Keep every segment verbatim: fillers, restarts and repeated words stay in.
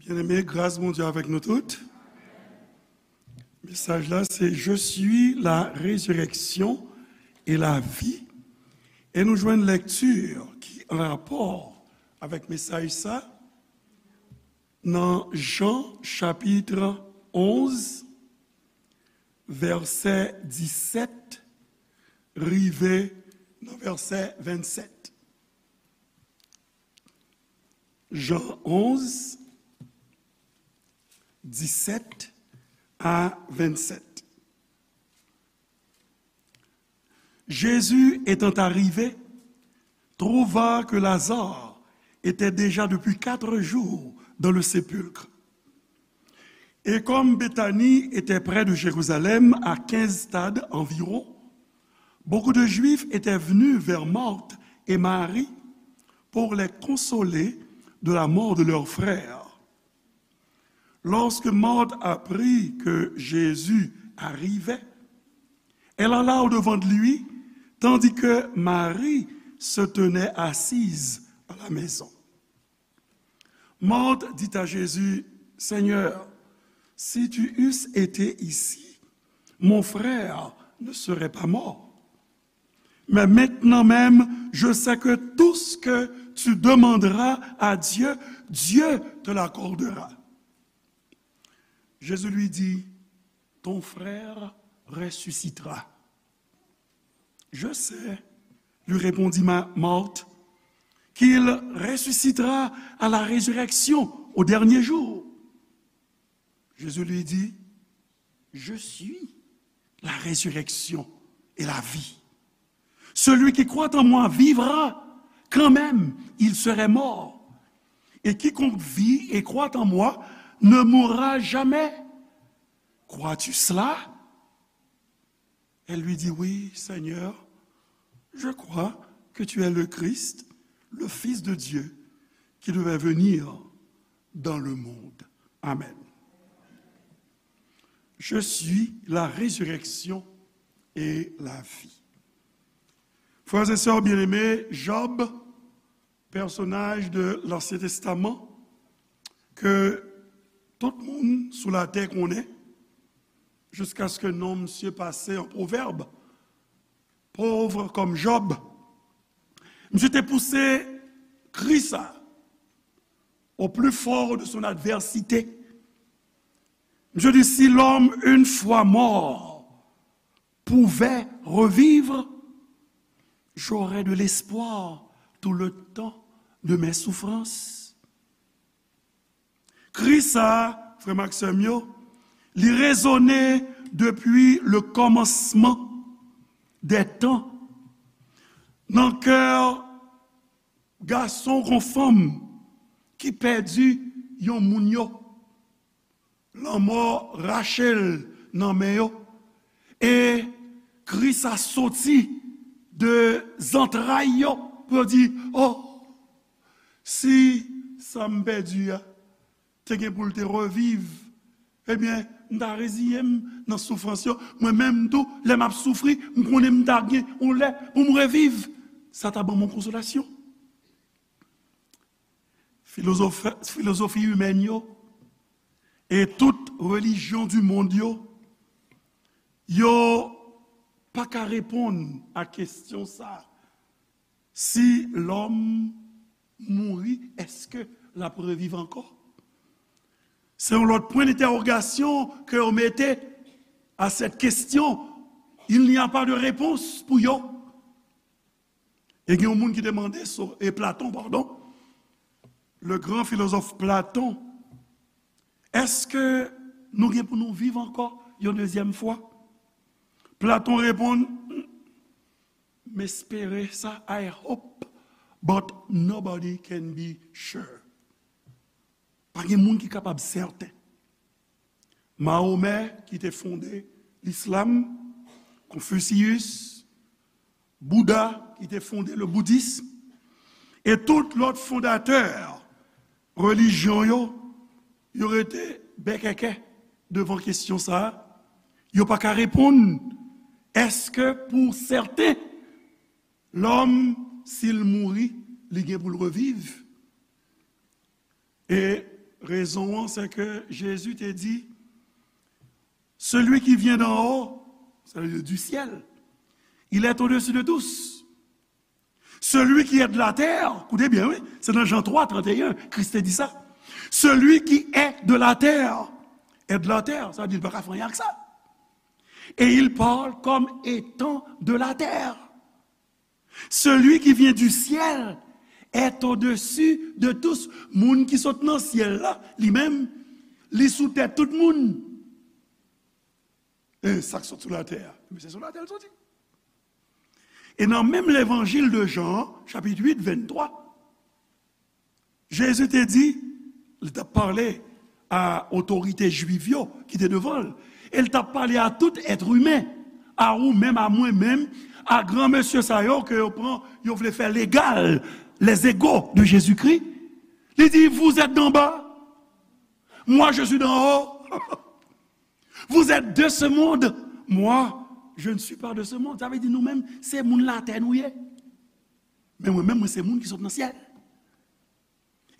Byeneme, gras Bondye avèk nou tout. Mesaj la se Je suis la résurrection et la vie. E nou jwenn lekti ki an rapò avèk mesaj sa nan Jan chapit onz, vèsè disèt rive nan vèsè vennsèt. Jan onz, disèt a vennsèt. Jésus étant arrivé, trouva que Lazare était déjà depuis quatre jours dans le sépulcre. Et comme Béthanie était près de Jérusalem, à quinze stades environ, beaucoup de Juifs étaient venus vers Marthe et Marie pour les consoler de la mort de leur frère. Lorsque Marthe apprit que Jésus arrivait, elle alla au-devant de lui, tandis que Marie se tenait assise à la maison. Marthe dit à Jésus, Seigneur, si tu eusses été ici, mon frère ne serait pas mort. Mais maintenant même, je sais que tout ce que tu demanderas à Dieu, Dieu te l'accordera. Jésus lui dit, ton frère ressuscitera. Je sais, lui répondit Ma- Marthe, qu'il ressuscitera à la résurrection au dernier jour. Jésus lui dit, je suis la résurrection et la vie. Celui qui croit en moi vivra, quand même il serait mort. Et quiconque vit et croit en moi ne mourra jamais. Crois-tu cela? Elle lui dit, oui, Seigneur, je crois que tu es le Christ, le Fils de Dieu, qui devait venir dans le monde. Amen. Je suis la résurrection et la vie. Frères et sœurs bien-aimés, Job, pèsonaj de Lansyen Testaman ke tout moun sou latè konnen, jiskaske non misye pase an pwovèb, pauvre comme Job. Misye te pouse kri sa au plus fort de son adversité. Misye di, si l'homme une fois mort pouvait revivre, j'aurais de l'espoir tout le temps de mes souffrances. Kri sa, frè m ak sè m yo, li rezone depi le kòmansman dè tan nan kè gason kon fanm ki pèdi yon moun yo. Lanmò rache l nan men yo. E kri sa soti de zantray yo pou yo di, o, si sa m pèdi a te gen pou l te reviv, ebyen, m ta reziye m nan soufrans yo. Mwen menm tou, lè m ap soufri, m konnen m ta gen yon lè pou m reviv. Sa ta ban m yon konsolasyon. Filozof- filozofi imèn yo e tout relijyon di mond yo, yo pa ka reponn a kesyon sa. Si lòm mouri, èske l ap reviv ankò? Se yon lòt pwen dentèwogasyon ke yo mete a sèt kesyon. Il n'y a pas de réponse pou yo. E gen yon moun ki te mande So- e Platon, padon, le grand philosophe Platon, èske nou gen pou nou viv ankò yon dezyèm fwa? Platon reponn, m espere sa, I hope, but nobody can be sure. Pa gen moun ki kapab sèten. Mahomè ki te fonde lislam, Confucius, Bouda ki te fonde le boudism, e tout lòt fondatè relijyon yo, yo rete bèkèkè devan kesyon sa a. Yo pa ka reponn, èske pou sèten, lòm, si l mouri, li gen pou l reviv? E Rezon an, se ke Jezi te di, celui qui vient d'en haut, ça veut dire du ciel, il est au-dessus de tous. Celui qui est de la terre, koute byen, wi, se nan Jan twa, trannteyen, Kris te di sa. Celui qui est de la terre est de la terre, sa vle di li pa ka fè anyen ak sa. Et il parle comme étant de la terre. Celui qui vient du ciel est au-dessus de tous. Moun ki sot nan syèl la, li menm, li sou tèt tout moun. E sa k sot sou latè a, men se sou latè l soti. E nan menm levanjil de Jan, chapit uit, venntwa, Jezi te di, li t ap pale a otorite jwif yo ki te devan l, e l t ap pale a tout èt imen, a ou menm, a mwen menm, a gran mesye sa yo ke yo pran, yo vle fè legal, les égaux de Jésus-Christ. Li di, vous êtes d'en bas, moi je suis d'en haut. Vous êtes de ce monde, moi je ne suis pas de ce monde. Sa vle di nou menm, se moun latè nou ye. Men mwen menm, mwen se moun ki sot nan syèl.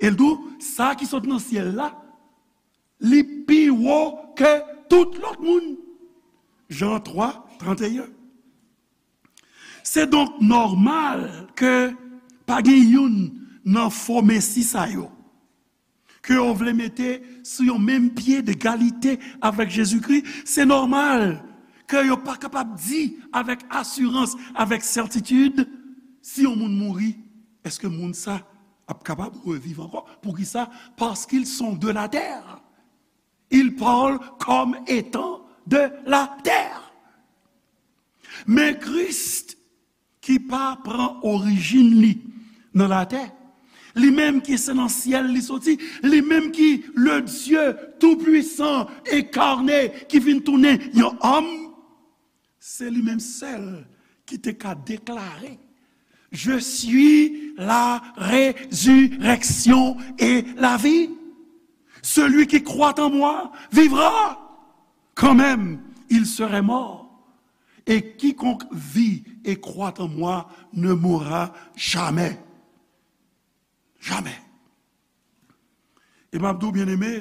E l di w, sa ki sot nan syèl la, li pi wo ke tout lòt moun. Jan twa, trannteyen. Se donk nòmal ke pa gen youn nan fo mesi sa yo ke yo vle mete sou yon menm pye degalite avèk Jezikri. Se nòmal ke yo pa kapab di avèk asirans, avèk sètitid, si yon moun mouri, èske moun sa ap kapab reviv ankò? Poukisa? Parce qu'ils sont de la terre. Ils parlent comme étant de la terre. Men Kris ki pa pran orijin li nan latè, li menm ki se nan syèl li soti, li menm ki le Dieu tout-puissant incarné ki vin tounen yon òm, se li menm sèl ki te ka deklare, je suis la résurrection et la vie. Celui qui croit en moi vivra quand même il serait mort. Et quiconque vit et croit en moi ne mourra jamais. Jamè. E m ap di w, byeneme,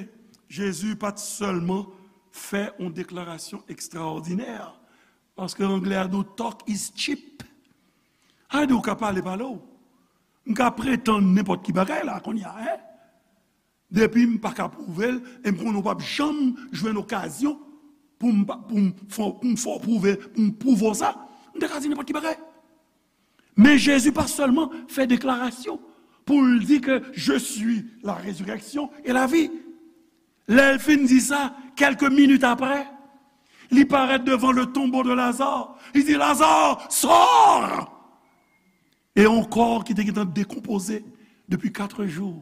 Jezi pa t sèlman fè yon deklarasyon ekstraòdinè, paske anglè a di w, talk is cheap. Sa vle di w ka pale, pale w. M ka pretann nenpòt ki bagay la, kounye a, en. Depi m pa ka pwouve l, e m konnen w p ap janm jwenn okazyon pou m pa, pou m fè, pou m fè w pwouve, pou m pwouve w sa. M te ka di nenpòt ki bagay. Men Jezi pa sèlman fè deklarasyon pou l di ke je suis la résurrection et la vie. Lè l fin di sa, kèlke minit apre, li parèt devan le tombeau de Lazare. Li di, Lazare, sors! E yon kò ki te gentan dekonpoze depi kat jou,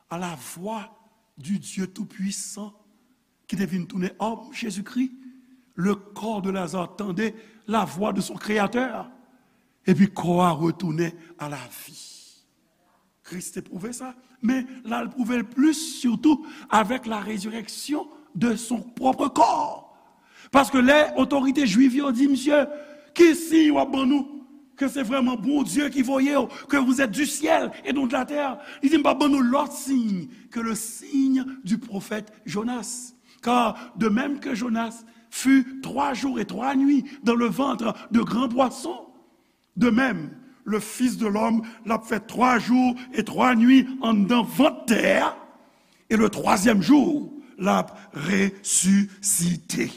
à la voix du Dieu Tout-Puissant, ki te vin tounen òm, Jezikri, le corps de Lazare tendait la voix de son Créateur, epi kò a retounen a la vi. Kris te pwouve sa, men l al pwouve l plis sitou avèk la résurrection de son propre corps. Paske lè otorite jwif yo di, misye, ki siy w ap ban nou ke se vrèman Bondye ki voye w, que vous êtes du ciel et non de la terre? Li di, m p ap ban nou lòt siy que le signe du prophète Jonas. Car de même que Jonas fut trois jours et trois nuits dans le ventre de grands poissons, de même, le Fils de l'homme l ap fè twa jou e twa nwi anndan vant tè a, e le twazyèm jou, l ap resisite.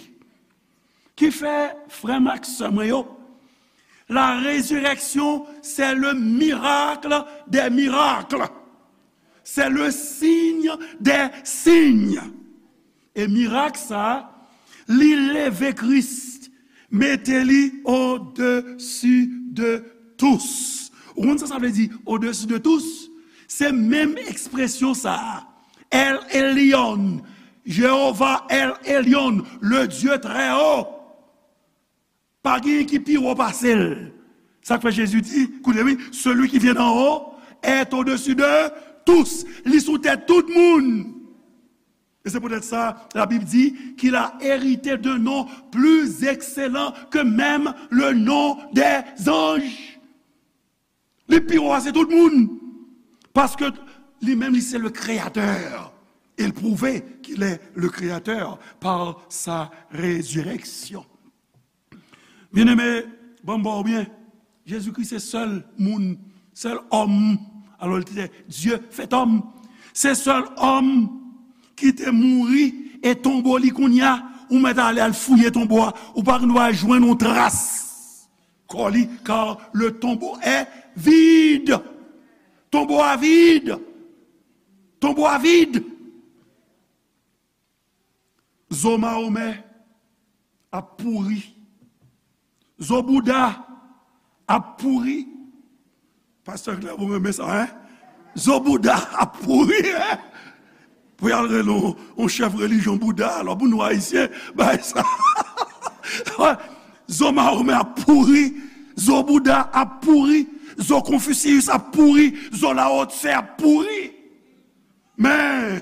Ki fè, frè m ak sè mwen yo, la résurrection, c'est le miracle des miracles. C'est le signe des signes. E mirak sa a, li leve Kris, mete li au-dessus de tous. Ou konn sa sa vle di, au-dessus de tous? Se menm ekspresyon sa a. El Elyon, Jewova El Elyon, le Dieu très haut. Pa gen ki pi wo pase l. Sa k fè Jezi di, koute wi, celui qui vient d'en haut est au-dessus de tous. Li sou tèt tout moun. E se poutèt sa, la Bible dit qu'il a hérité d'un nom plus excellent que même le nom des anges. Li pi wo pase tout moun. Paske li menm, li se le créateur. Il prouve qu'il est le Créateur par sa résurrection. Byeneme, ban m ba w byen, Jezikri se sèl moun, sèl òm, alò li te Dye fèt òm, se sèl òm ki te mouri e tonbo li kounye a, ou mèt ale al fouye tonbo a, ou pa dwa jwenn yon tras kò li, car le tombeau est vide. Tonbo a vid. Tonbo a vid. Zo Mahomè ap pouri. Zo Bouda ap pouri. Pastè Clermont renmen sa, en? Zo Bouda ap pouri, en? Pou y al rele yon, yon chèf relijyon Bouda, alò pou nou Ayisyen, bay sa. Zo Mahomè ap pouri. Zo Bouda ap pouri. Zo Konfisiyis ap pouri. Zo Lao Tse ap pouri. Men,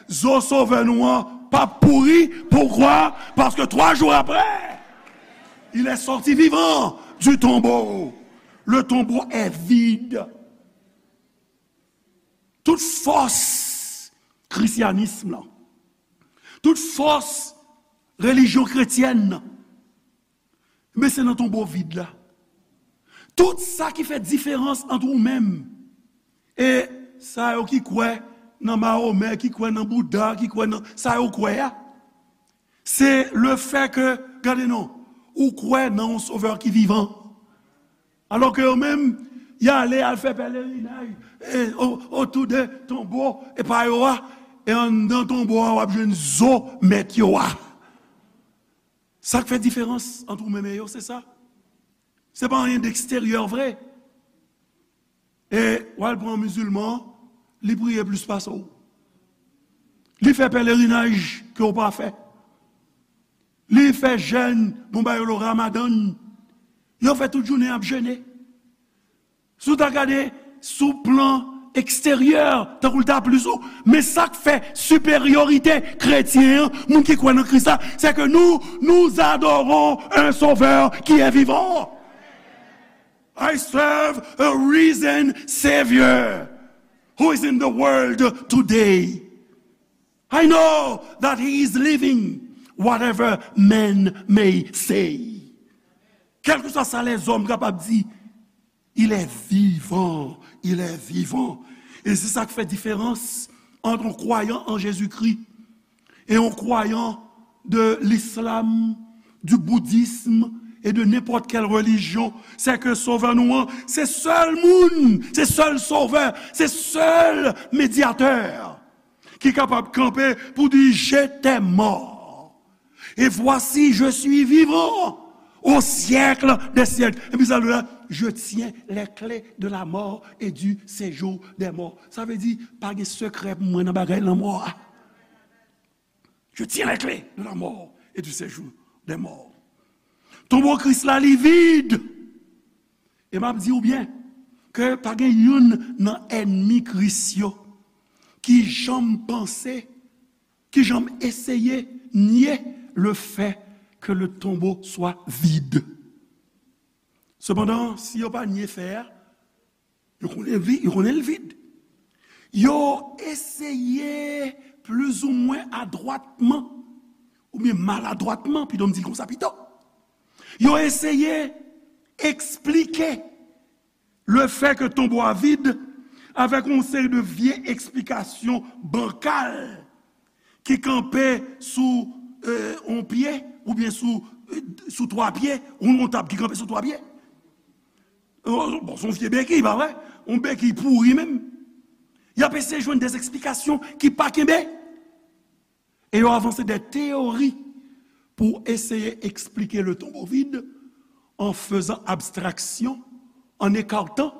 zo Sovè nou an p ap pouri. Poukwa? Paske twa jou apre, il est sorti vivant du tombeau. Le tombeau est vide. Tout fòs krisyanism lan, tout fòs relijyon kretyèn nan, men se nan tonbo vid la. Tout sa ki fè diferans ant ou menm e sa yo ki kwè nan Mahomè, ki kwè nan Bouda, ki kwè nan sa yo kwè a, se le fè ke, gade non, ou kwè nan yon Sovè ki vivan. Alò ke yo menm, y ale al fè pèlerinaj e, o-, otou de tonbo e pa yo a, e anndan tonbo a w ap jwenn zo mèt yo a. Sa k fè diferans ant ou menm e yo, se sa. Se pa anyen deksteryè vre. E w al pran yon mizilman, li priye plis pase w. Li fè pèlerinaj ke w pa fè. Li fè jèn, bon ba yo le Ramadan. Yo fè tout jounen ap jene. Si w ta gade sou plan eksteryè, tankou l ta plis ou, men sa k fè siperyorite kretyen an, moun ki kwè nan Kris la, se ke nou, nous adorons un Sauveur qui est vivant. I serve a risen Savior who is in the world today. I know that he is living, whatever men may say. Kèlkeswa sa lèzòm kapab di, il est vivant, il est vivant. E se sa k fè diferans ant yon kwayan an Jezikri e yon kwayan de l'islam, du bouddhisme et de n'importe quelle religion, se ke Sovè nou an, se sèl moun, se sèl Sovè, se sèl medyatè ki kapab kanpe pou di, j'étais mort, et voici, je suis vivant au siècle des siècles. Epi sa l di la, je tiens les clés de la mort et du séjour des morts. Sa vle di, pa gen sekrè pou mwen nan bagay lanmò a. Je tiens les clés de la mort et du séjour des morts. Tonbo Kris la, li vid. E m ap di w byen ke pa gen youn nan ènmi Kris yo ki janm panse, ki janm eseye nye le fait que le tombeau soit vide. Sepandan, si yo pa nye fè a, yo konnen vi-, yo konnen l vid. Yo eseye plizoumwen adwatman, oubyen maladwatman, pito m di l konsa pito. Yo eseye eksplike le fait que tonbo a vid avèk yon seri de vye eksplikasyon bankal ki kanpe sou, euh, yon pye, oubyen sou, euh, sou twa pye, yon, yon tab ki kanpe sou twa pye. Euh, bon, se yon vye bekiy, pa vre? Yon bekiy pouri menm. Y ap eseye jwenn de eksplikasyon ki pa kenbe. E yo avanse de teyori pou eseye eksplike le tombeau vide en faisant abstraction, en écartant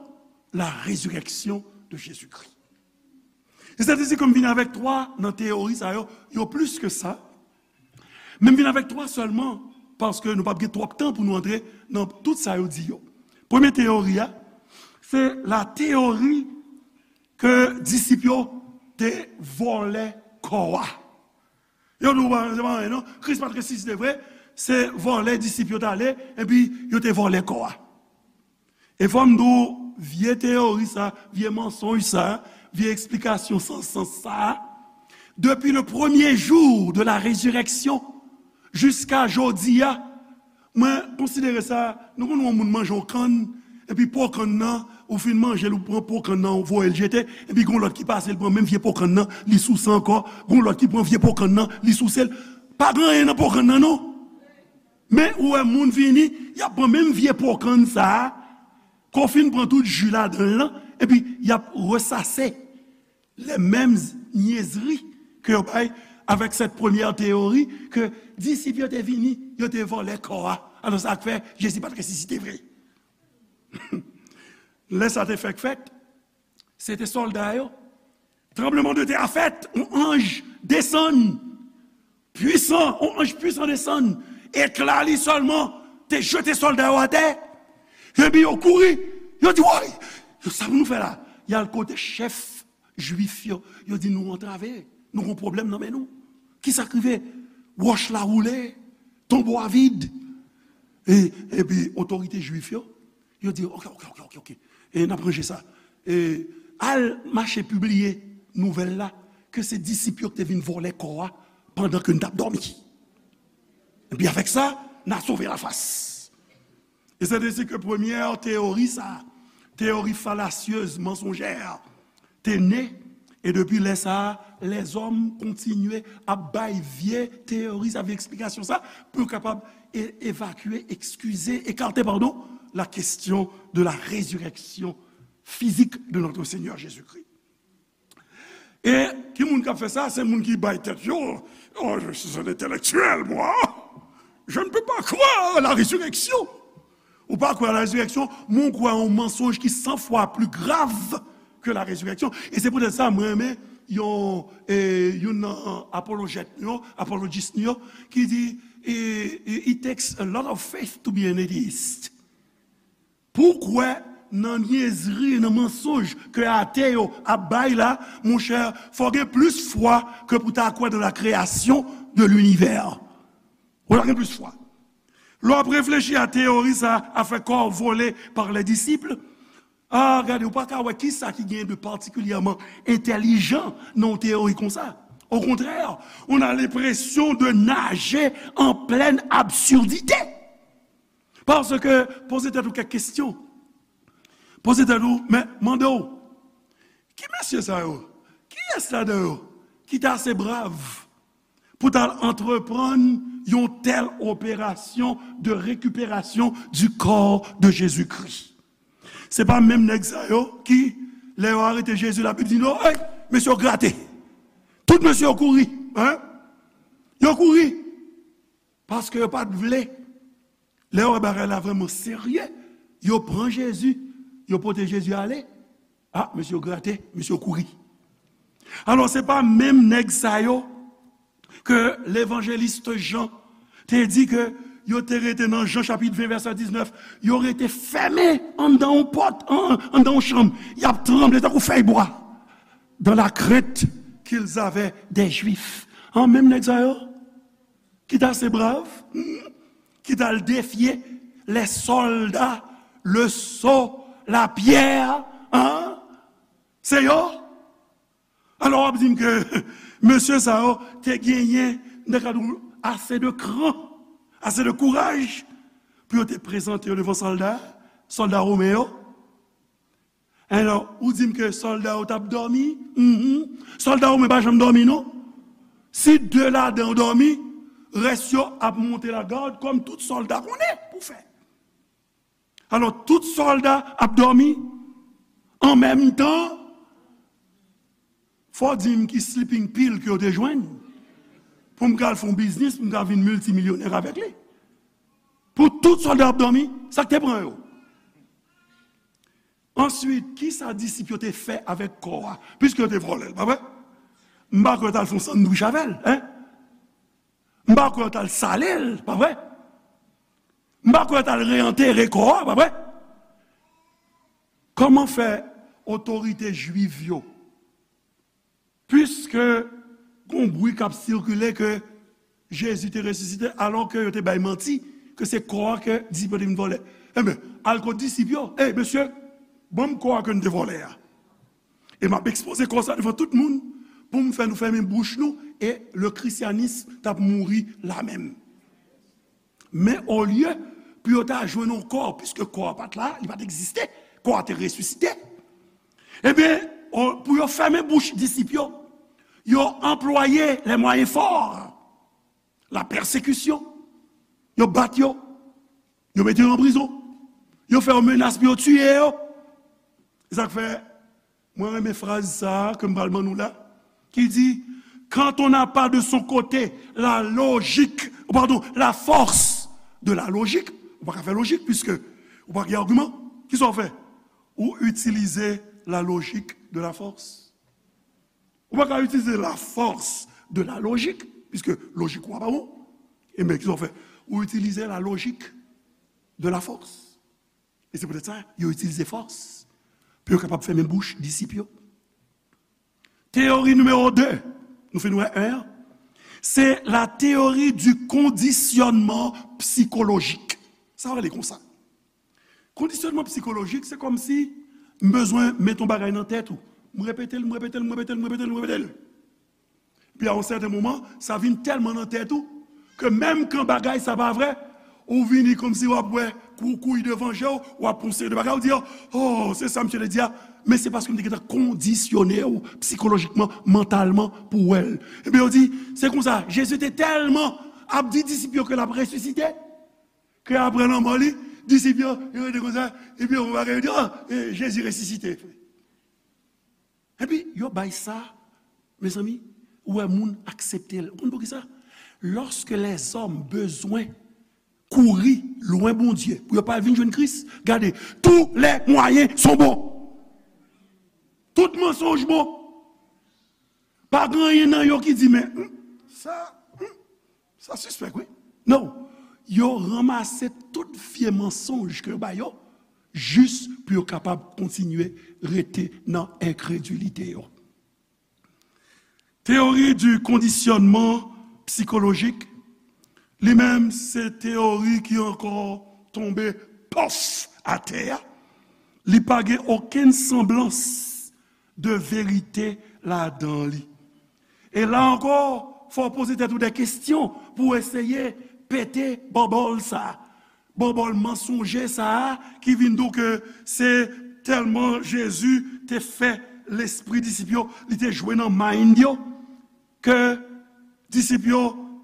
la résurrection de Jésus-Christ. E sa te di ke m vin avèk twa nan teyori sa yo, yo plis ke sa. Men m vin avèk twa sèlman, paske nou p ap gen twòp tan pou nou antre nan tout sa yo di yo. Premye teyori a, se la teyori ke disip yo te vòlè kò a. Yo di w, "Bon, se pa anyen non, Kris pa t resisite vre, se vòlè disip yo t ale, epi yo te vòlè kò a." E fò m di w, vye teyori sa, vye mansonj sa, vye eksplikasyon san sans sa, Depuis le premier jour de la résurrection, jiska jodi a, mwen konsidere sa, nou konn wè yon moun manje yon kann, epi po kann nan, ou fin manje l, ou pran po kann nan, ou voye l jete, epi gon lòt ki pase, l pran menm vye po kann nan, li souse ankò, gon lòt ki pran vye po kann nan, li souse l. Pa gen anyen nan po kann nan, non. Men ou wè moun vini, y ap pran menm vye po kann sa a, ke w fin pran tout ji ladan l lan, epi y ap resase les mêmes niaiseries ke yo bay avec cette première théorie ke disip yo te vini, yo te vòlè kò a. Alò, sa k fè Jezi pa t resisite vre. Lè sa te fèk fèt, se te sòlda yo. Tranblemanntè a fèt, yon anj desann, pwisan, yon anj pwisan desann, ekla li sèlman te jete sòlda yo atè. Epi yo kouri, yo di, woy, yo, sa pou nou fè la? Y al kote chèf Jwif yo, yo di, nou antrave, nou gon pwoblèm nan men nou. Kisa k rive? Wòch la woule, tonbo a vid. E, epi otorite Jwif yo, yo di, oke, oke, oke, oke, oke. E n ap ranje sa. E al mache pibliye nouvèl la, ke se disip yo ki te vin vòlè kò a pandan ke n t ap dòmi. Epi avèk sa, n a sove lafas. E se de si ke premyè teyori sa, teyori falasyez, mansonjè, te ne, e depi lè sa a, lèzòm kontinye ap bay vye teyori sa, vye eksplikasyon sa, pou yo kapab e-, evakye, eskize, ekate, padon, la question de la résurrection physique de notre Seigneur Jésus-Christ. E ki moun k ap fè sa? Se moun ki bay tèt yo, oh, je suis un intellectuel, moi. Je ne peux pas croire à la résurrection. Ou pa kwè a la rezireksyon, men ou kwè a yon mansonj ki san fwa pli grav ke la rezireksyon. E se poutèt sa mwen renmen yon, e, youn nan apolojèt nou yo, apolojis nou yo, ki di, e, e, it takes a lot of faith to be an atheist. Pou w kwè nan nyèzri, nan mansonj ke ate yo ap bay la, monchè, fò w gen plis fwa ke pou ta kwè dans la création de l'univers. Ou ta gen plis fwa. Lè w ap reflechi a teyori sa, afè kò vole par les disciples, a, gade, ou pa ka wè kisa ki gen de patikilyèman entèlijan nan yon teyori konsa. Au contraire, on a l'impression de nager en pleine absurdité. Paske, poze tèt ou kèk kesyon. Poze tèt ou, men, mande w, ki mesye sa yo? Kiyès ladan yo ki te ase brav pou t al antreprann yon tèl operasyon de récupération du corps de Jésus-Christ? Se pa menm nèg sa yo ki, lè yo arete Jezi, Labib di nou, hey, mesye yo grate. Tout mesye yo kouri, en? Yo kouri. Paske yo pa t vle. Lè yo wè bagay la vrèman serye, yo pran Jezi, yo pote Jezi ale. A, mesye yo grate, mesye yo kouri. Alò, se pa menm nèg sa yo ke levanjelis Jan te di ke yo te rete nan Jan chapit ven vèsè diznèf, yo rete fèmen anndan yon pòt, an-, anndan yon chanm. Y ap tranble tankou fèy bwa. Dans la crainte qu'ils avaient des Juifs. An, menm nèg sa yo ki t ase brav, hmm, ki t al defye les soldats, le seau, la pierre, en? Se yo? Alò, w ap di m ke mesye sa yo te genyen, m te ka di w, ase de kran, ase de kouraj pou yo te prezante yo devan sòlda, sòlda women yo? Alò, ou di m ke sòlda yo t ap dòmi? Mhm. Sòlda women pa janm dòmi, non. Si de ladan yo dòmi, rès yo ap monte lagad, kòm tout sòlda konnen pou fè. Alò, tout sòlda ap dòmi an menm tan. Fò w di m ki sleeping pill ke yo te jwenn pou m ka al fè yon biznis, pou m ka vin miltimilyonè avèk li. Pou tout sòlda ap dòmi, sa k te pran yo? Answit, kisa disip yo te fè avèk kò a? Piske yo te vòlè l, pa vre? M pa kwè yo t al fè yon sandwich avè l, en? M pa kwè yo t al sale l, pa vre? M pa kwè yo t al reantere kò a, pa vre? Kòman fè otorite jwiv yo, piske gon bri k ap sikile ke Jezi te resisite, alò ke yo te bay manti, ke se kò a ke disip yo te vin vòlè. Enben, al kot disip yo, ey, mesye, ban m kò a ke n te vòlè a. E m ap ekspoze kò sa devan tout moun, pou m fè nou fèmen bouch nou, e le christianisme t ap mouri la menm. Men olye pou yo ta jwenn yon kò, piske kò a pa t la, li pa t egziste, kò a te resisite. Ebyen, o- pou yo fèmen bouch disip yo, yo anplwaye les moyens forts, la pèsekisyon. Yo bat yo, yo mete yo an prizon, yo fè yo menas pou yo tiye yo. Se sa k fè mwen renmen fraz sa a ke m pral ban nou la, ki di, quand on n'a pas de son côté la logique, pardon, la force de la logique, ou pa ka fè lojik, piske ou pa gen agiman, kisa w fè? Ou itilize la logique de la force. Ou pa ka itilize la force de la logique, piske lojik ou a pa bon. E men kisa w fè? Ou itilize la logique de la force. E se poutèt sa, yo itilize fòs pou yo kapab fèmen bouch disip yo. Teyori nimewo de, nou fin wè en an, se la théorie du conditionnement psychologique. Sa rele konsa. Kondisyònman psikolojik, se kòmsi m bezwen met yon bagay nan tèt ou. M repete l, m repete l, m repete l, m repete l, m repete l. Epi a yon sèten moman, sa vin tèlman nan tèt ou, ke menm kan bagay sa pa vre, ou vini kòmsi w ap wè kou kouy devan je w, w ap pran yon seri de bagay, ou di, "Oh, se sa misye te di a." Men se paske m te gentan kondisyone w psikolojikman, mantalman, pou w wè l. Ebyen, yo di, se konsa, Jezi te tèlman ap di disip yo ke l ap resisite, ke apre lanmò li, disip yo, yo rete konsa, epi yo bagay, yo di, "Oh, eh, Jezi resisite." Epi, yo bay sa, mezanmi, ou wè moun aksepte l. Ou konn poukisa? Lorsque les hommes bezwen kouri lwen Bondye pou yo pa vin jwenn Kris, gade, tous les moyens sont bons. Tout mansonj bon. Pa gen anyen nan yo ki di, men, hmm, sa, hmm, sa sispèk, wi. Non. Yo ranmase tout vye mansonj ke yo ba yo, jis pou yo kapab kontinye rete nan enkredilite yo. Théorie du conditionnement psychologique, li menm, se teyori ki ankò tonbe pòf atè a. Li pa gen okenn sanblans de verite ladan li. E la ankò, fò w poze tèt ou de kesyon pou w eseye pete bòbòl sa a. Bòbòl mansonje sa a ki vin di w ke se tèlman Jezi te fè lespri disip yo, li te jwe nan mind yo, ke disip yo,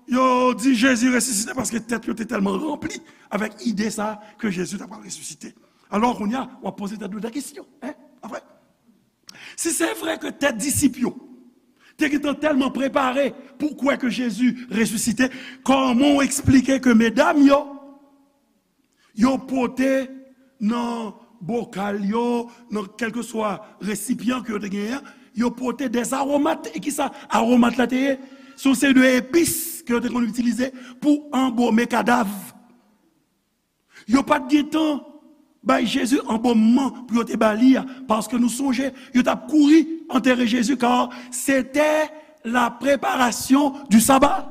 yo di Jezi resisite paske tèt yo te tèlman ranpli avèk ide sa a ke Jezi ta pral resisite. Alò, kounye a, w ap poze tèt ou de kesyon, en? Pa vre? Si se vre ke tèt disip yo te gentan tèlman prepare pou kwè ke Jezi resisite, kòman w eksplike ke medam yo, yo pote nan bokal yo, nan kèlkeswa resipyan ke yo te genyen an, yo pote des aromates. E kisa aromat la te ye? Se yon seri de epis ke yo te konn itilize pou anbome kadav. Yo pa t gen tan bay Jezi anbomman pou yo te ba li a, paske nou sonje, yo t ap kouri antere Jezi, car c'était la préparation du sabbat.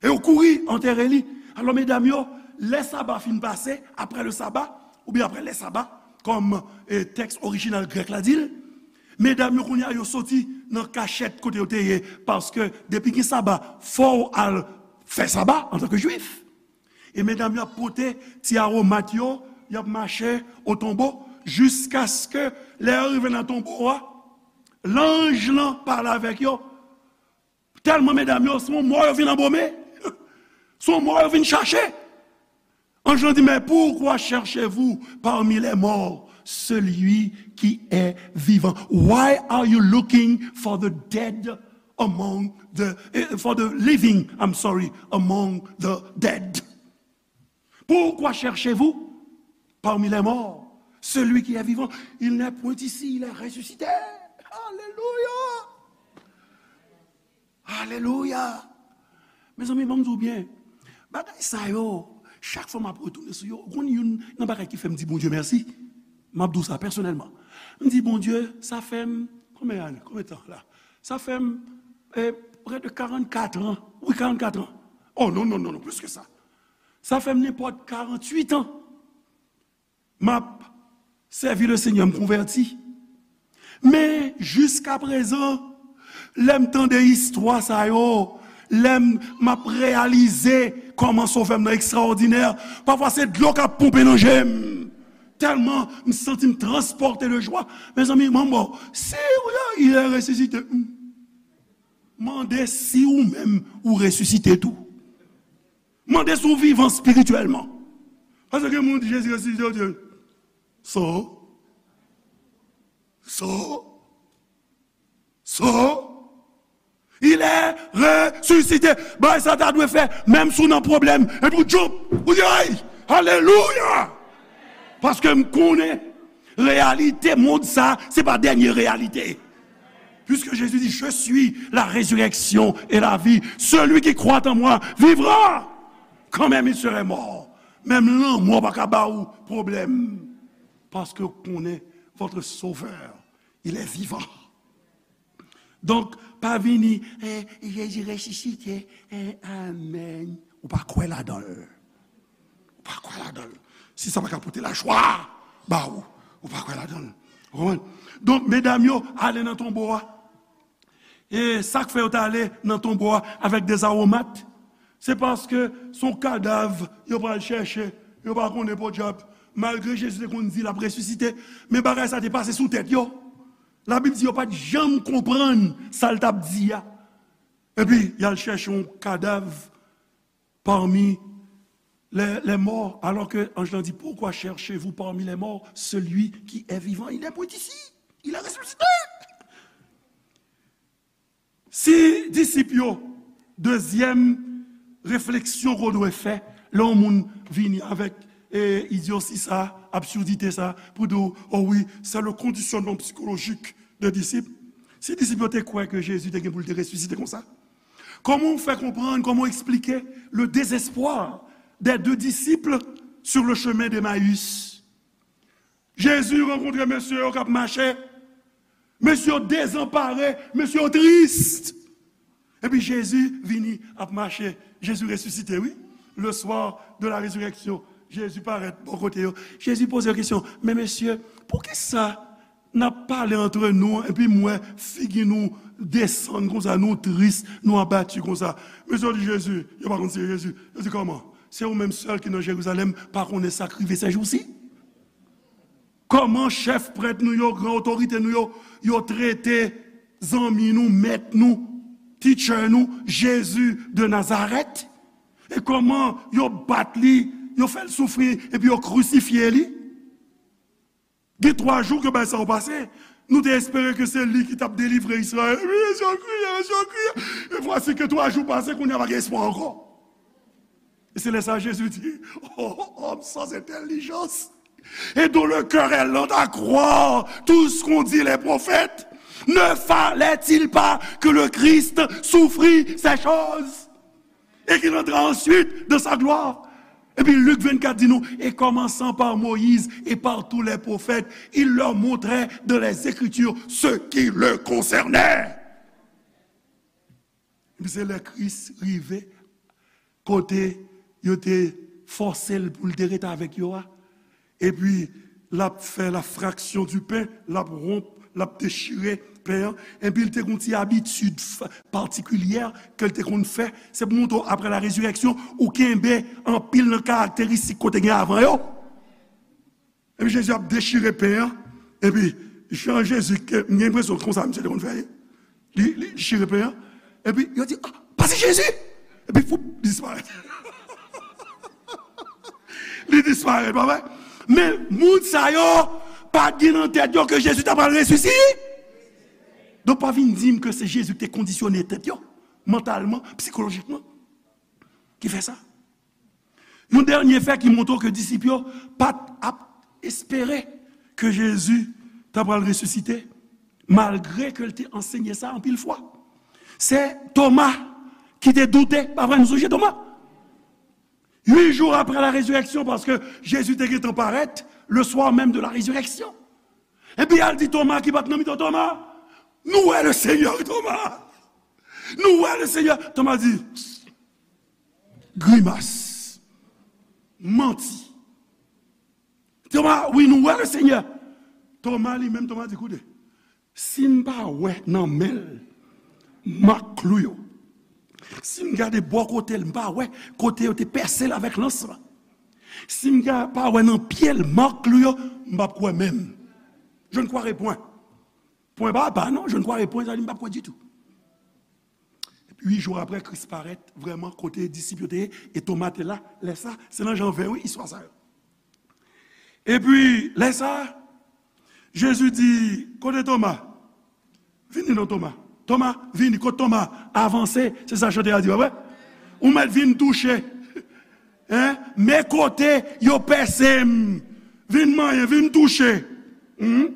E yo kouri antere li. Alò, medam yo, lè saba fin pase, après le sabbat, oubyen après les sabbats, kòm, eh, tèks orijinal grèk la di l, medam yo, kounye a, yo soti nan kachèt kote yo te ye, paske depi gen saba, fò w al fè saba antanke jwif. E medam yo ap pote ti aromat yo, y ap mache o tonbo, jiskaske lè yo rive nan tonbo a, lanj lan pale avèk yo. Tèlman medam yo, se yon mò yo vin anbome. Se yon mò yo vin chache. Anj lan di, mais pourquoi cherchez-vous parmi les morts celui qui est vivant? Why are you looking for the dead among the, eh, for the living, I'm sorry, among the dead? Pourquoi cherchez-vous parmi les morts celui qui est vivant? Il n'est point ici, il est ressuscité. Alelouya! Alelouya! Mezanmi, ban m di w byen, bagay sa yo, chak fwa m ap retounen sou yo, ou konn youn nan bagay ki fè m di Bondye mèsi, m ap di w sa pèsonèlman. M di, Bondye, sa fè m, konbyen ane, konbyen tan la? Sa fè m, eh, près de quarante-quatre ans. Wi, quarante-quatre ans. Oh, non, non, non, non, plus que ça. Sa fè m nenpòt quarante-huit ans. M ap sèvi Lesenyè, m konvèti. Men, jiskaprezan, Lè m tande istwa sa yo, lè m, m ap reyalize kòman Sovè m nan ekstraòdinè, pafwa se dlo k ap ponpe nan je m. Tèlman m santi m transpòte de jwa. Mezanmi, manbo, si w, il est ressuscité, mande si ou menm ou resisite tou. Mande si w vivan espirityèlman. Paske gen moun di Jezi resisite, yo di, so, so, so, il est ressuscité. Bagay sa ta dwe fè, menm si w nan pwoblèm, epi w jump, ou di, ay, alelouya! Paske m konnen reyalite mond sa, se pa dènye reyalite. Puisque Jésus dit, je suis la résurrection et la vie. Celui qui croit en moi vivra, quand même il serait mort. Menm lanmò pa ka ba ou pwoblèm. Paske w konnen votre Sauveur, il est vivant. Donk, pa vini, eh, Jezi resisite, eh, amèn. Ou pa kwè ladan l. Ou pa kwè ladan l. Si sa pa ka pote lajwa ba ou, ou pa kwè ladan l. Ou konprann? Donk, medam yo ale nan tonbo a. E sa k fè yo t ale nan tonbo a avèk de zawomat, se paske se yon kadav yo pral chèche, yo pa konnen podyab. Malgre Jezi te konn di l ap resisite, men bagay sa te pase sou tèt yo. Labib di yo pa t janm konprann sa l t ap di a. Epi, y al chèche yon kadav parmi les, les morts, alors que anj lan di, pourquoi cherchez-vous parmi les morts celui qui est vivant? Il n'est point ici, il est ressuscité. Si disip yo, dezyèm refleksyon ke w dwe fè, lè yon moun vini avèk, e, idyosi sa, absurdite sa, pou di w, oh wi, c'est le conditionnement psychologique des disciples. Si disip yo te kwè ke Jezi te gen pou l te resisite konsa, kòman w fè konprann, kòman w eksplike le désespoir des deux disciples sur le chemin d'Emmaüs? Jezi rankontre mesye yo k ap mache. Mesye yo dezanpare, mesye yo tris. Epi Jezi vini ap mache. Jezi resisite, wi. Le soir de la résurrection, Jezi parèt bò kote yo. Jezi poze yo kesyon, men mesye, poukisa n ap pale antre nou, epi m wè figi nou desann konsa, nou tris, nou abati konsa? Mesye yo di Jezi, yo pa konn se Jezi. Yo di, kòman? Se ou menm sèl ki nan Jerizalèm pa konnen sa k rive sèjousi? Kòman chèf prèt nou yo, gran otorite nou yo, yo trete zanmi nou, mèt nou, teacher nou, Jezi de Nazarèt? E kòman yo bat li, yo fè l soufri, epi yo krisifye li? Gen twa jou ke bagay sa yo pase. Nou te espere ke se li ki t ap delivre Izrayèl. Epi mesye yo kriye, mesye yo kriye. E vwasi ke twa jou pase, kounye a pa gen espwa ankò. E se lè sa Jezi di, oh, homme sans intelligence, et dont le cœur est lent à croire tout ce qu'ont dit les prophètes, ne fallait-il pas que le Christ souffrit ces choses et qu'il entrera ensuite dans sa gloire? Epi Lik vennkat di nou, et commençant par Moïse et par tous les prophètes, il leur montrait dans les Écritures ce qui le concernait. Epi se lè Kris rive, kote yo te fòse l pou l te ret avèk yo a. Epi l ap fè la fraction du pain, l ap wonp, l ap dechire pen an. Epi l te gen yon ti abitid f-, patikilyè ke l te konn fè. Se pou montre w, après la résurrection, ou kenbe anpil nan karakteristik ke w te gen avan yo. Epi Jezi ap dechire pen an. Epi jan Jezi, ke, m gen enpresyon konsa misye te konn fè. Li, li chire pen an. Epi yo di, ah, pase Jezi! Epi foup, li disparèt. Li disparèt, pa vre? Men moun sa yo pa t gen nan tèt yo ke Jezi ta pral resisite. Donk pa vin di m ke se Jezi ki te kondisyone tèt yo, mantalman, sikolojikman, ki fè sa. Yon dènye fè ki montre w ke disip yo pa t ap espere ke Jezi ta pral resisite, malgre ke l te ansenye sa anpil fwa. Se Toma ki te doute, pa vre, nou sonje Toma? Uit jou apre la rezireksyon, paske Jezi te gentan parèt, le soir même de la résurrection. Epi al di Toma ki pa t nan mitan, Toma, nou wè le Senyè, Toma. Nou wè le Senyè. Toma di, grimas. Manti. Toma, wi, nou wè le Senyè. Toma li menm, Toma di, koute, si m pa wè nan men l mak klou yo. Si m gade bò kote l, m pa wè kote yo te pèse l avèk lans lan. Si m ga-, pa wè nan pye l mak klou yo, m p ap kwè menm. Je ne croirai point. Pwen pa pa, non, je ne croirai point, sa di m p ap kwè ditou. Epi, uit jou apre, Kris parèt vrèman kote disip yo te ye, e Toma te la. Lè sa, se nan Jan ven, wi, istwa sa yo. Epi, lè sa, Jezi di, kote Toma? Vini non, Toma. Toma, vini. Kote Toma? Avanse, se sa chantè a di, pa vre? Ou mèt vin touche. Hein? Men kote yo pèse m. Vin manyen, vin touche. Hmm?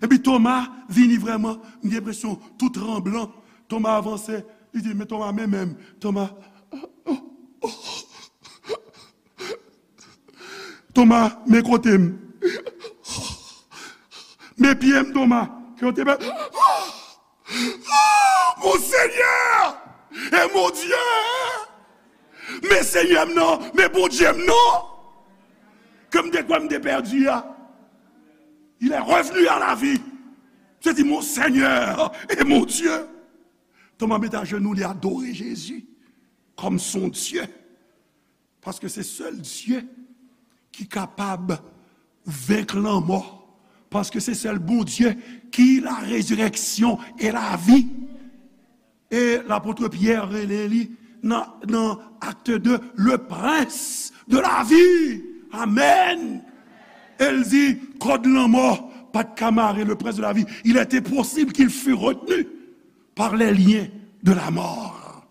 Epi Toma vini vrèman, m gen enpresyon, tou tranblan. Toma avanse, li di, men Toma, men men m. Toma, Toma, men kote m. Men pye m, Toma. Ke yo te bè. Mon Senyè e mon Dye! Men Senyè m nan, men Bondye m nan! Ke m te kwè m te pèdi a. Il est revenu à la vie. Se di, mon Senyè e mon Dye. Toma met ajenou, li adore Jezi kòm son Dye. Paske se sèl Dye ki kapab venk lanmò. Paske se sèl Bondye ki la résurrection et la vie. E lapot Pyè rele li nan, nan Acte deux, le prince de la vie. Amen. E l di, kòd lanmò pa t ka mare le prince de la vie. Il était possible qu'il fût retenu par les liens de la mort.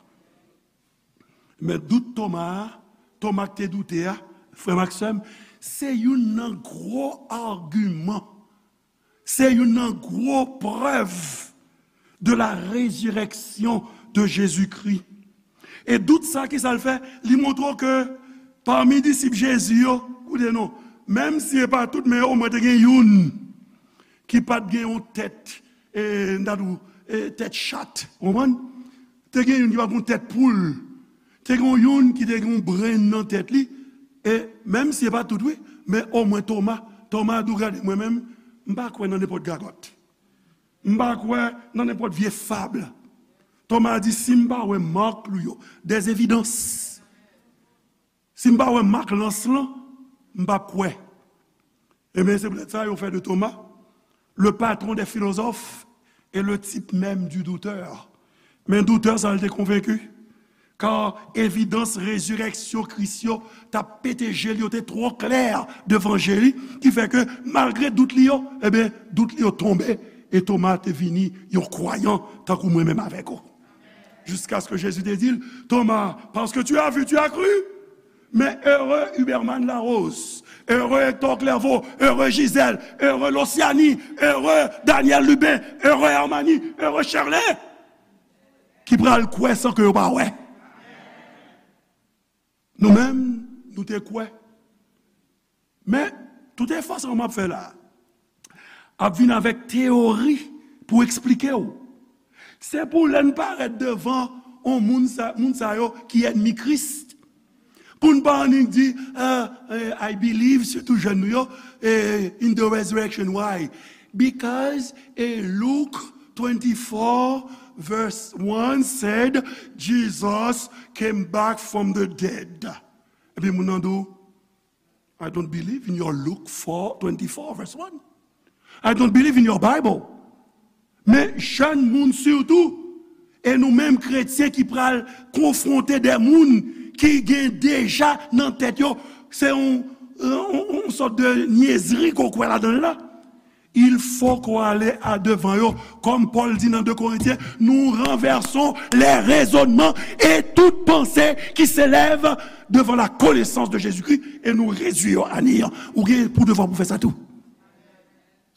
Men dout Toma a, Toma k te doute a, frè m ak sè m, se youn nan gwo agiman, se youn nan gwo prèv de la résurrection de Jésus-Christ. E dout sa, ki sa l fè? Li montre w ke pami disip Jezi yo, koute non, menm si e pa tout, men omwen te gen youn ki pa t gen yon tèt, e, n ta di w, e, tèt chat, w konprann? Te gen youn ki pa t gen yon tèt poul. Te gen youn ki te gen yon brenn nan tèt li. E menm si e pa tout, wi, men omwen Toma, Toma di w, gade, mwen menm, m pa kwè nan nenpòt gagòt. M pa kwè nan nenpòt vye fab. Toma di, si m pa wè mak klou yo, des évidences, si m pa wè mak lans lan, m p ap kwè. Ebyen, se poutèt sa yo fè de Toma le patron des philosophes et le type même du doutteur. Men doutè sa, l te konvenki. Kar evidans rezirèksyon Kris yo t ap pete je l, yo te twò klè devan je li, ki fè ke malgre dout li yo, ebyen, dout li yo tonbe, e Toma te vini yon kwayan tankou mwen menm avèk ou. Jusqu'à ce que Jésus te di l, Thomas, parce que tu as vu, tu as cru. Men ere Huberman Larose, ere Hector Clerveau, ere Gisèle, ere Lociani, ere Daniel Lubin, ere Hermani, ere Sherley, ki pral kwè san ke yo pa wè. Nou menm, nou te kwè. Men, tout efò sa w m ap fè la a, ap vin avèk teyori pou eksplike w. Se pou lè n parèt devan on moun sa, moun sa yo ki ènmi Kris, pou n pa annik di, ah, eh, I believe, sitou jèn nou yo, eh, in the resurrection. Why? Because, eh, Luke twenty-four verse one said, Jesus came back from the dead. Epi moun nan di w, I don't believe in your Luke four twenty-four, verse one. I don't believe in your Bible. Men jèn moun sitou, e nou menm kretyen ki pral konfwonte de moun ki gen deja nan tèt yo, se yon, yon, yon sòt de nyezri ke w kwè ladan l la. Il faut qu'on aille à devan yo. Comme Paul dit dans deux Corinthiens, nous renversons les raisonnements et toute pensée qui s'élève devant la connaissance de Jésus-Christ et nous réduire à néant. Ou gen pou devwa pou fè sa tou.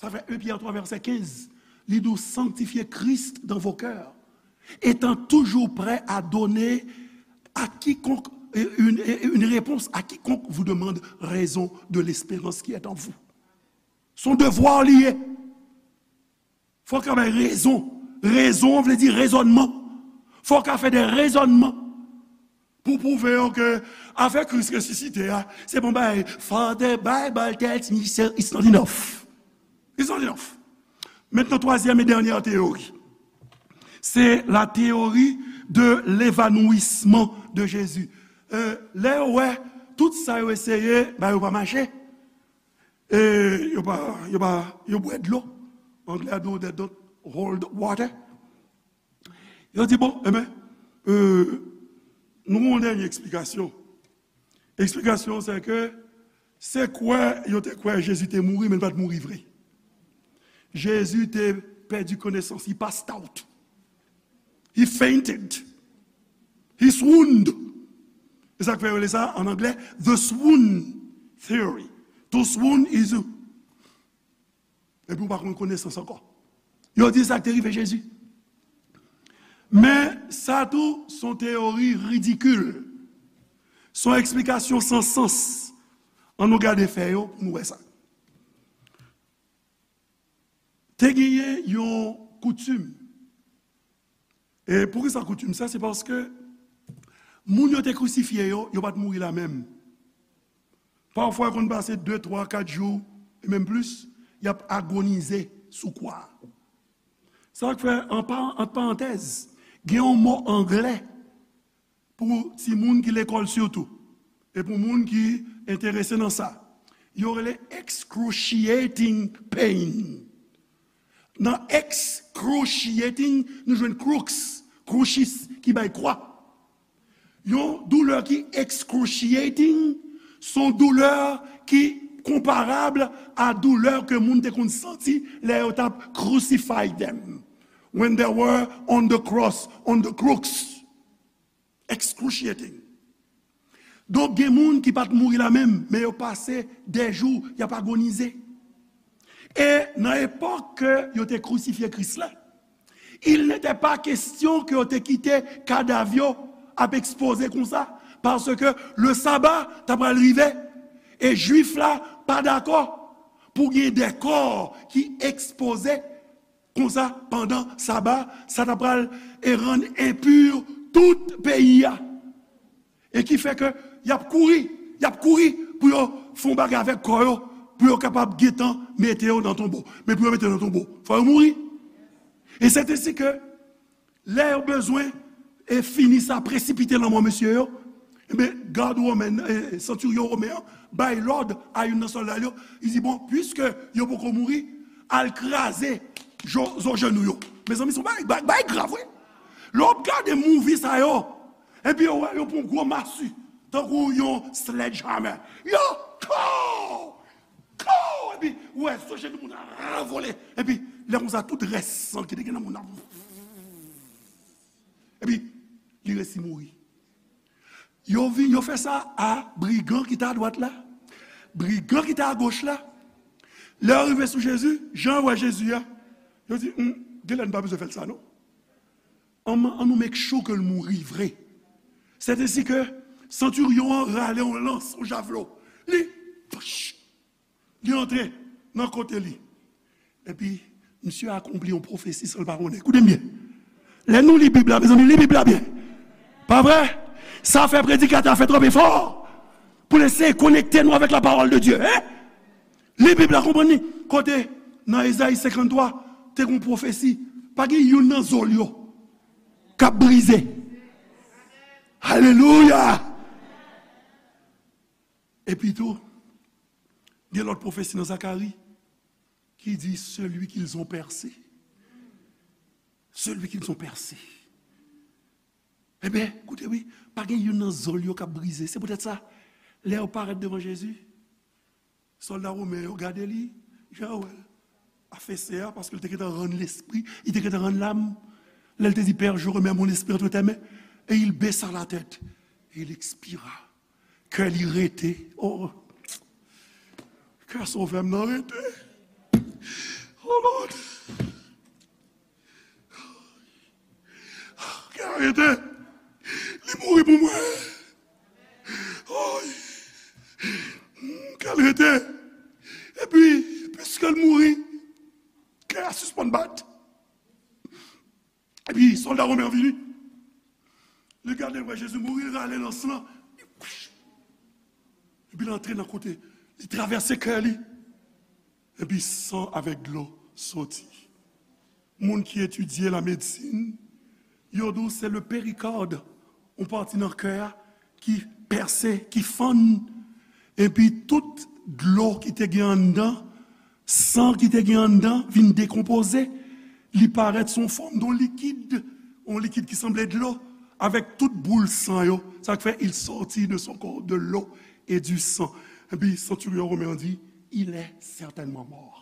Sa fè un Pierre trois verset quinze. Li di w, sanctifiez Christ dans vos cœurs, étant toujours prêt à donner à quiconque, euh, une, une réponse à quiconque vous demande raison de l'espérance qui est en vous. Se yon devwa li ye. Fò w ka bay rezon. Rezon vle di rezònman. Fò w ka fè de rezònman pou pwouve yo ke afè Kris resisite a, se pa yon bagay, for the Bible tells me so, it's not enough. It's not enough. Mentnan, twazyèm e dènyè teyori. C'est la théorie de l'évanouissement de Jésus. Euh, lè yo wè tout sa yo eseye, ba yo pa mache. E yo pa, yo pa, yo bwè dlo. Anglè a di, they don't hold water. Yo di, bon, enben, euh, nou gen yon dènye eksplikasyon. Eksplikasyon se ke se kwè yo te kwè Jezi te mouri, men l pa t mouri vre. Jezi te pèdi konesans, he passed out. He fainted. He swooned. E sa k fè yo rele sa, an anglè, the swoon theory. To swoon is epi ou pa konn konesans ankò. Yo di sa k te rive Jezi. Men sa tou, se yon teyori ridikil. Se yon eksplikasyon san sans. Ann nou gade fè yo pou nou wè sa. Te genyen yon koutim. E poukisa koutim sa? Se paske moun yo te krisifye yo, yo pa t mouri lamenm. Pafwa, yo konn pase de, twa, kat jou, e menm plis, y ap agonize sou kwa a. Sa k fè, an pa-, ant parantèz, gen yon mo anglè pou timoun ki lekòl sitou, e pou moun ki enterese nan sa. Yo rele excruciating pain. Nan excruciating, nou jwenn crux, crucis, ki bay kwa. Yon doulè ki excruciating, se yon doulè ki konparab a doulè ke moun te konn santi lè yo t ap crucify them. When they were on the cross, on the crux. Excruciating. Donk, gen moun ki pa t mouri lammenm, men yo pase dè jou, y ap agonize. E nan epòk ke yo te krisifye Kris la, il n'était pas question ke yo te kite kadav yo ap ekspoze konsa, paske le sabbat ta pral rive, e Jwif la pa dakò pou gen de kò ki ekspoze konsa, pandan saba, sa ta pral e rann enpi tout peyi a. E ki fè ke y ap kouri, y ap kouri pou yo fè yon bagay avèk kò yo, pou yo kapab gentan mete yo nan tonbo. Men pou yo mete yo nan tonbo, fò yo mouri. E se te si ke lè yo bezwen e fini sa, presipite lanmò mesye yo, enben, gad women, e, santiryon women an bay lòd a youn nan sòlda l yo, li di, bon, piske yo poko mouri, al kraze zo, zo jenou yo. Mezanmi, se yon bagay, bagay, bagay grav, wi. Lè w ap gade movie sa yo, epi yo wè yo pran gwo masi, tankou yon sledgehammer. Yo, kow! Kow! Epi, ou wè, zo jenou moun nan ranvole. Epi, lè konsa, tout rès san ki te gen nan moun nan. Epi, li resi mouri. Yo vi-, yo fè sa a brigan ki te adwat la, brigan ki te agoch la. Lè yo rive sou Jezi, jan yo wè Jezi a, yo di, hmm, genlè n pa bezwen fè l sa, non. An, an nou make sure ke l mouri vre. Sètesi ke santiryon an rale yon lans, yon javlo. Li, pach, li antre nan kote li. Epi, misye akonpli yon pwofesi san l pa konnen. Koute m byen. Lè nou li Bib la, mezanmi, li Bib la byen. Pa vre? Sa fè predikatè a fè twòp efò pou l eseye konekte nou avèk la parole de Dieu, en? Li Bib la, konprann li. Kote, nan Ezayi senkanntwa, te gen yon pwofesi. Pa gen youn nan zo l yo k ap brize. Alelouya! Epi tou, gen lòt pwofesi nan Zakari ki di, celui qu'ils ont percé. Celui qu'ils ont percé. Ebyen, koute wi, pa gen youn nan zo l yo k ap brize. Se poutèt sa, lè yo parèt devan Jezi, sòlda women yo gade li, jan yo wè l afese a, paske l te gentan rann lespri, li te gentan rann lam. Lè l te di, Père, je remets mon esprit entre tes mains, et il baissa la tête, et il expira. Kè li rete. Oh. Kè sovè m nan rete. Oh, Lord. Kè l rete. Li mouri pou mwen. Oh. Kè l rete. Epi, piske l mouri, kè a sispann bat. Epi sòlda women an vini. Li gade, l wè Jezi mouri, li rale lans lan. Epi l antre nan kote, li travèse kè li. Epi san avèk dlo soti. Moun ki etidye la medsin, Yo di w se le péricorde, yon pati nan kè a ki pèse, ki fann, epi tout dlo ki te gen anndan, san ki te gen anndan, vin dekonpoze. Li parèt sou fòm de yon likid, yon likid ki sanble dlo, avèk tout boul san yo. Sa k fè il sortit de son corps de l'eau et du sang. Epi centurion romen an di, il est certainement mort.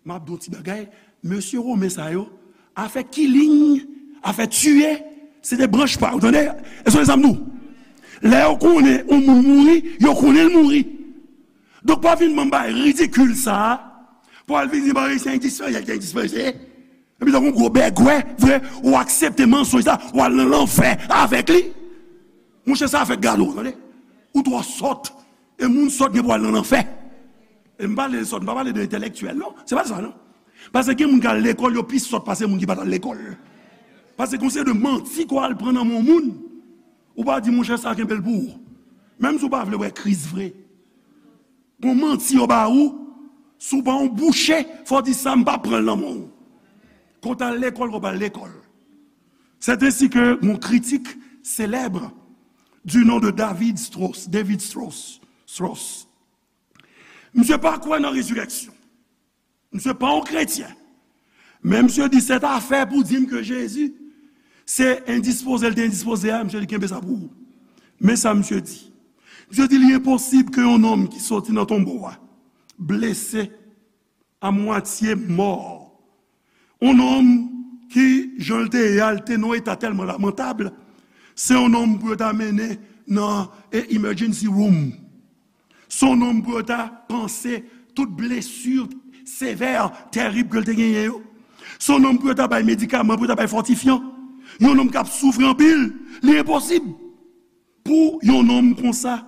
M ap di w ti bagay, mesye women sa yo, afè killing, afè tiye, se te branch pa yo, tande? E se sa m di w. Lè yo konnen yon moun mouri, yo konnen l mouri. Donk, pa vin ban m bagay ridikil sa a, pou al vin di, "Bon, se endispoze, se endispoze." Epi, tankou yon gwo bègwè, vre, ou aksepte mansonj sa, ou al nan lanfè avèk li. Monchè, sa fè gade w, tande? Ou twò sòt. E moun sòt gen pou al nan lanfè. E m pale de sòt, m pa pale de entèlektyèl, non. Se pa sa, non. Paske gen moun k al lekòl, yo pi sòt pase moun ki pa t al lekòl. Paske gon seri de manti ke w al pran nan men yon moun, ou pa di, "Monchè, sa kenbe l pou ou." Menm si w pa vle wè Kris vre. Gon manti yo ba ou, si w pa yon bouche, fò w di, "Sa, m pa pran l nan men w." Ke w t al lekòl, ke w pa al lekòl. C'est ainsi que mon critique célèbre du nom de David Strauss, David Strauss, Strauss. Misye pa kwè nan rezirèksyon. Misye pa yon kretyen. Men misye di, "Sèt afè pou di m ke Jezi se endispoze l te endispoze a," misye di, "Kenbe sa pou ou." Men sa misye di. Misye di, "Li enposib ke yon nonm ki soti nan tonbo a, blese, a mwatye mò, yon nonm ki, jan l te ye a, l te nan yon eta tèlman lamantab, se yon nonm pou yo ta mennen nan, e, emergency room. Se yon nonm pou yo ta panse tout blesi sevè, terib ke l te genyen yo. Se yon nonm pou yo ta bay medikaman, pou yo ta bay fòtifyan. Yon nonm k ap soufri anpil, li enposib pou yon nonm konsa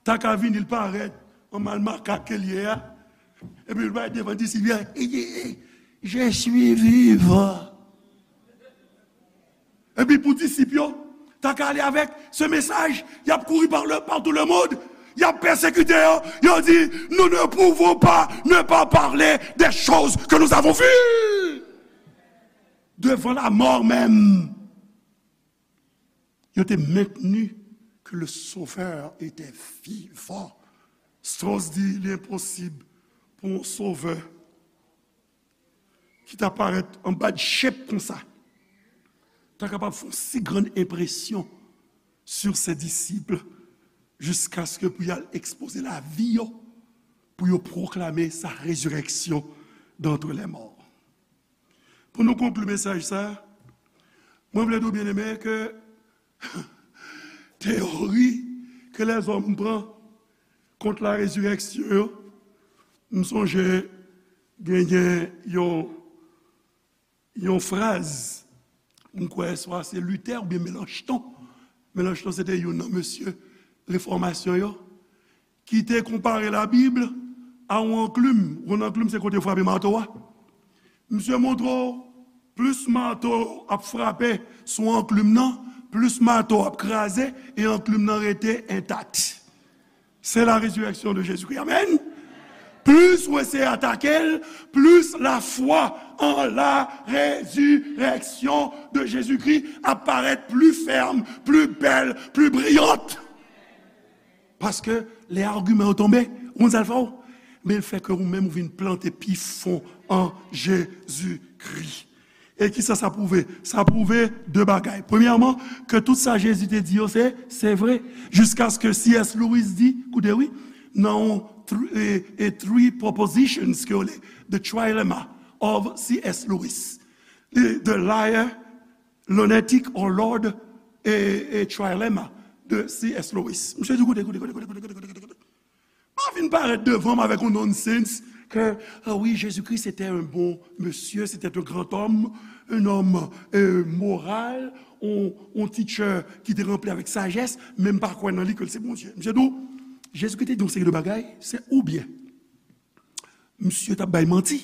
ta ka vini, l parèt an mal makak ke l ye a, epi l bay devan disip yo, "Je suis vivant." Epi pou disip yo ta ka ale avèk se mesaj, y ap kouri par le, partout le monde, y ap pèsekite yo, yo di, "Nous ne pouvons pas ne pas parler des choses que nous avons vues." Devan lamò menm, yo te mentni ke le Sauveur était vivant. Strauss di, "Li enposib pou yon sovè ki ta parèt an bad shape konsa ta kapab fè yon si grann enpresyon sur ses disciples, jiskaske pou y al ekspoze lavi yo, pou yo pwoklame sa rezirèksyon d'entre les morts." Pou nou konkli mesaj sa, mwen vle di w, byeneme, ke teyori ke lèzòm pran kont la rezirèksyon yo, m sonje genyen yon, yon fraz, m kwè swa se Luther oubyen Melanchthon. Melanchthon se te youn nan mesye refòmasyon yo, ki te konpare Labib a yon anklim. Yon anklim se kote yo frape mato a. Misye montre w, plis mato ap frape sou anklim nan, plis mato ap kraze, e anklim nan rete entak. C'est la résurrection de Jésus-Christ. Amèn. Plis ou eseye atake l, plis lafwa an la résurrection de Jésus-Christ ap parèt pli fèm, pli bèl, pli briyant. Paske lè agiman yo tonbe, ou konn sa l fè w? Men l fè ke ou menm ou vin plante pi fon an Jezikri. E kisa sa pwouve? Sa pwouve de bagay. Premyèman, ke tout sa Jezi te di yo, se, se vre. Jiskaske C S Lewis di, koute wi, nan yon thr-, e, e three propositions ke yo rele, The Trilemma of C S Lewis. The, the Liar, Lunatic or Lord, e, e Trilemma de C S Lewis. Misye di, koute, koute, koute. Pa vin parèt devan m avèk yon nonsense ke, ah oui, Jésus-Christ était un bon monsieur, c'était un grand homme, un homme, euh, moral, yon, yon teacher ki te ranpli avèk sajès, men m pa kwè nan li ke l se Bondye. Misye di w, Jezikri te di yon seri de bagay, se oubyen misye t ap bay manti,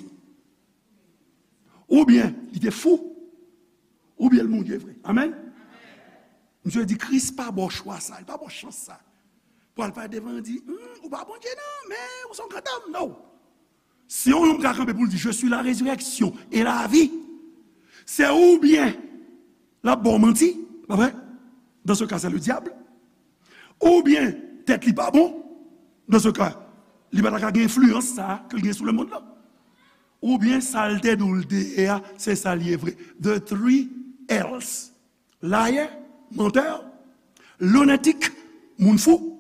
oubyen li te fou, oubyen l Bondye vre. Amèn? Misye di Kris pa ba w chwa sa, li pa ba w chans sa. Pou al pale devan l di, hmm, ou pa Bondye non, men ou se yon grandòm, non. Si yon nonm ka kanpe pou l di, je suis la résurrection et la vie, se oubyen L ap ba w manti, pa vre? Dans ce cas, c'est le diable. Oubyen, tèt li pa bon. Dans ce cas, li pa ta ka gen enfliyans sa a ke l gen sou lemonn nan. Oubyen, sa l te di w l te ye a, se sa l ye vre. The three L's. Liar, menteur, lunatic, moun fou,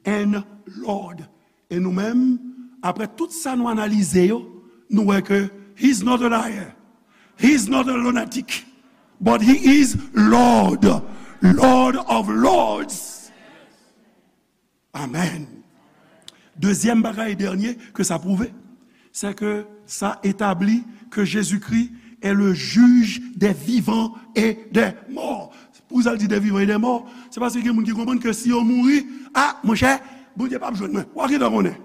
and Lord. E nou menm, apre tout sa nou analize yo, nou wè ke he's not a liar, he's not a lunatic, but he is Lord, Lord of Lords. Amen. Dezyèm bagay e dènye ke sa pwouve, se ke sa etabli ke Jezikri est le juge des vivants et des morts. Poukisa l di des vivants et des morts? Se paske gen moun ki konprann ke si yo mouri, a, monchè, Bondye p ap jwenn mwen. W a gentan konnen.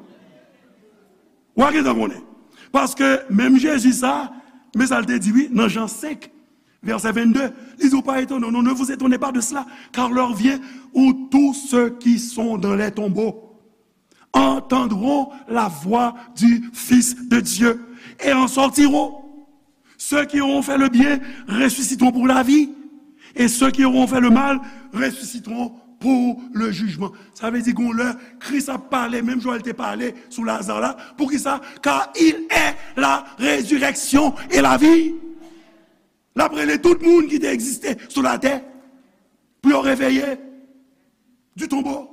W a gentan konnen. Paske menm Jezi sa, men sa l te di, wi, nan Jan senk, vèsè vennde, li di, ou pa etone, non, ne vous étonnez pas de cela, car l'heure vient où tous ceux qui sont dans les tombeaux entendront la voix du Fils de Dieu et en sortiront. Ceux qui auront fait le bien ressusciteront pour la vie, et ceux qui auront fait le mal ressusciteront pour le jugement. Sa vle di, gon lè, Kris ap pale, menm jan l te pale sou Laza la. Poukisa? Car il est la résurrection et la vie. L ap rele tout moun ki te egziste sou latè pou yo reveye du tombeau.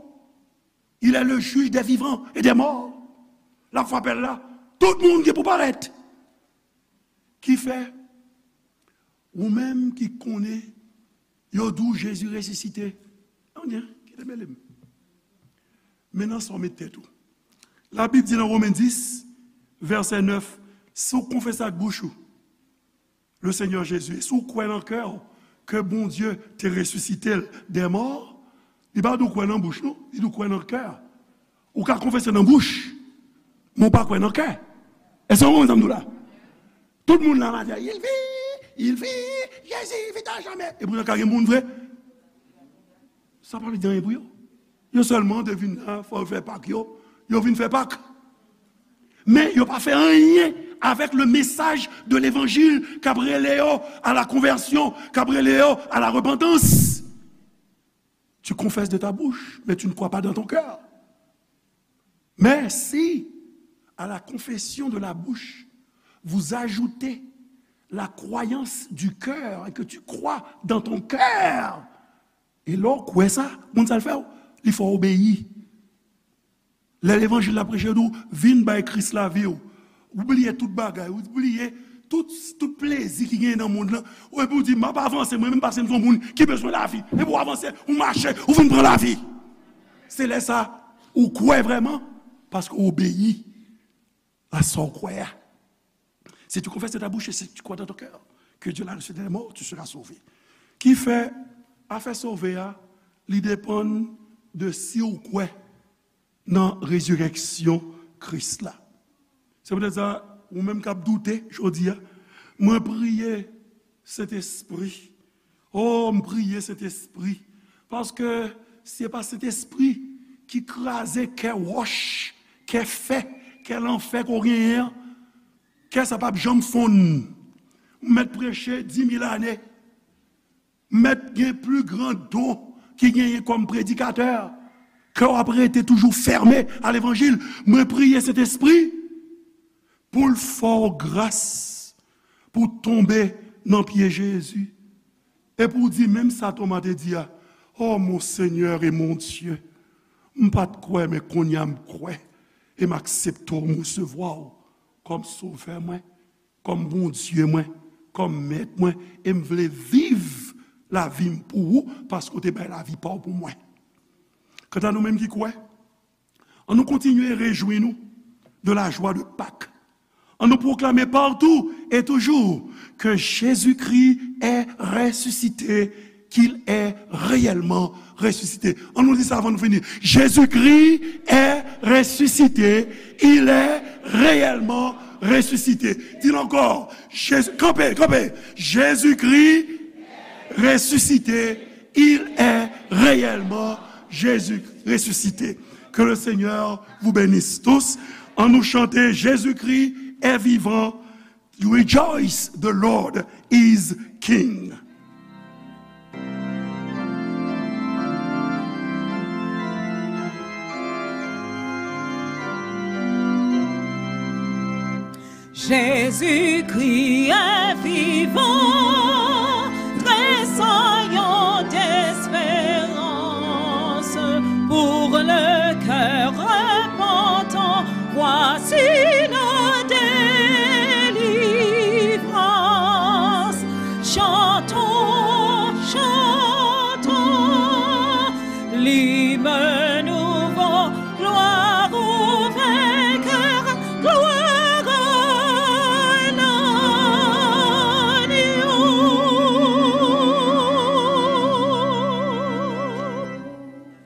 Il est le juge des vivants et des morts. L ap fè apèl la. Tout moun ki pou parèt. Ki fè, ou menm ki konnen, yo di w Jezi resisite. Anyen, kite mele m. Men nan sa w met tèt ou. Labib di nan Women dis, vèsè nèf, si w konfese ak bouch ou, le Seigneur Jésus, e si w kwè nan kè w ke Bondye te resisite l dè mò, li pa di w kwè nan bouch, non, li di w kwè nan kè. Ou ka konfese nan bouch, men w pa kwè nan kè. Èske w konprann sa m di w la? Tout moun la, maten, il vit, il vit, Jésus vit à jamais. E poutan ka gen moun vre. Sa pa vle di anyen pou yo. Yo sèlman te vin la, fò yo fè Pak yo. Yo vin fè Pak. Men yo pa fè anyen avèk le message de l'évangile k ap rele yo à la conversion, k ap rele yo à la repentance. Tu confesses de ta bouche, mais tu ne crois pas dans ton cœur. Mais si, à la confession de la bouche, vous ajoutez la croyance du cœur et que tu crois dans ton cœur, e lè w kwè sa, moun sa l fè w, li fè w obeyi. Lè levanjil la preche, yo di w, vin bay Kris lavi w. Ou bliye tout bagay, ou bliye tout, tout plezi ki genyen nan mond lan. Ou epi w di, m ap avanse, mwen menm, paske m se yon moun ki bezwen lavi. Epi w avanse, ou mache, ou vin pran lavi. Se lè sa, ou kwè vrèman, paske w obeyi a sa w kwè a. Si tu confesses de ta bouche et si tu crois dans ton cœur que Dieu l'a ressuscité des morts, tu seras sauvé. Ki fè, afè sove a, li depann de si w kwè nan rezirèksyon Kris la. Se poutèt sa, ou menm k ap doute jodi a, mwen priye Sentespri. O, m priye Sentespri. Paske si se pa Sentespri ki kraze kè wòch, kè fè, kè lanfè ke w genyen an, kè sa p ap janm fonn. M mèt preche di mil ane. M mèt gen pli gran don ki genyen kòm predikatè, ke w ap rete toujou fèmen a levanjil. Mwen priye Sentespri pou l fè w gras, pou w tonbe nan pye Jezi, e pou w di menm sa Toma te di a, O mon Seigneur et mon Dieu, m pa t kwè, men kounye a m kwè, e m aksepte w, m resevwa w kòm Sovè mwen, kòm Bondye mwen, kòm Mèt mwen, e m vle viv lavi m pou ou, paske w te bay lavi pa w pou mwen. Kanta nou menm ki kwè, ann nou kontinye rejwi nou de la joie de Pâques. Ann nou pwoklame partout et toujours que Jésus-Christ est ressuscité, qu'il est réellement ressuscité. Ann nou di sa avan nou fini. Jésus-Christ est ressuscité, il est réellement ressuscité. Di l ankò. Jésus, kanpe, kanpe. Jésus-Christ ressuscité, il est réellement Jésus ressuscité. Que le Seigneur vous bénisse tous. Ann nou chante Jésus-Christ est vivant. Rejoice, the Lord is King. Jezikri envite.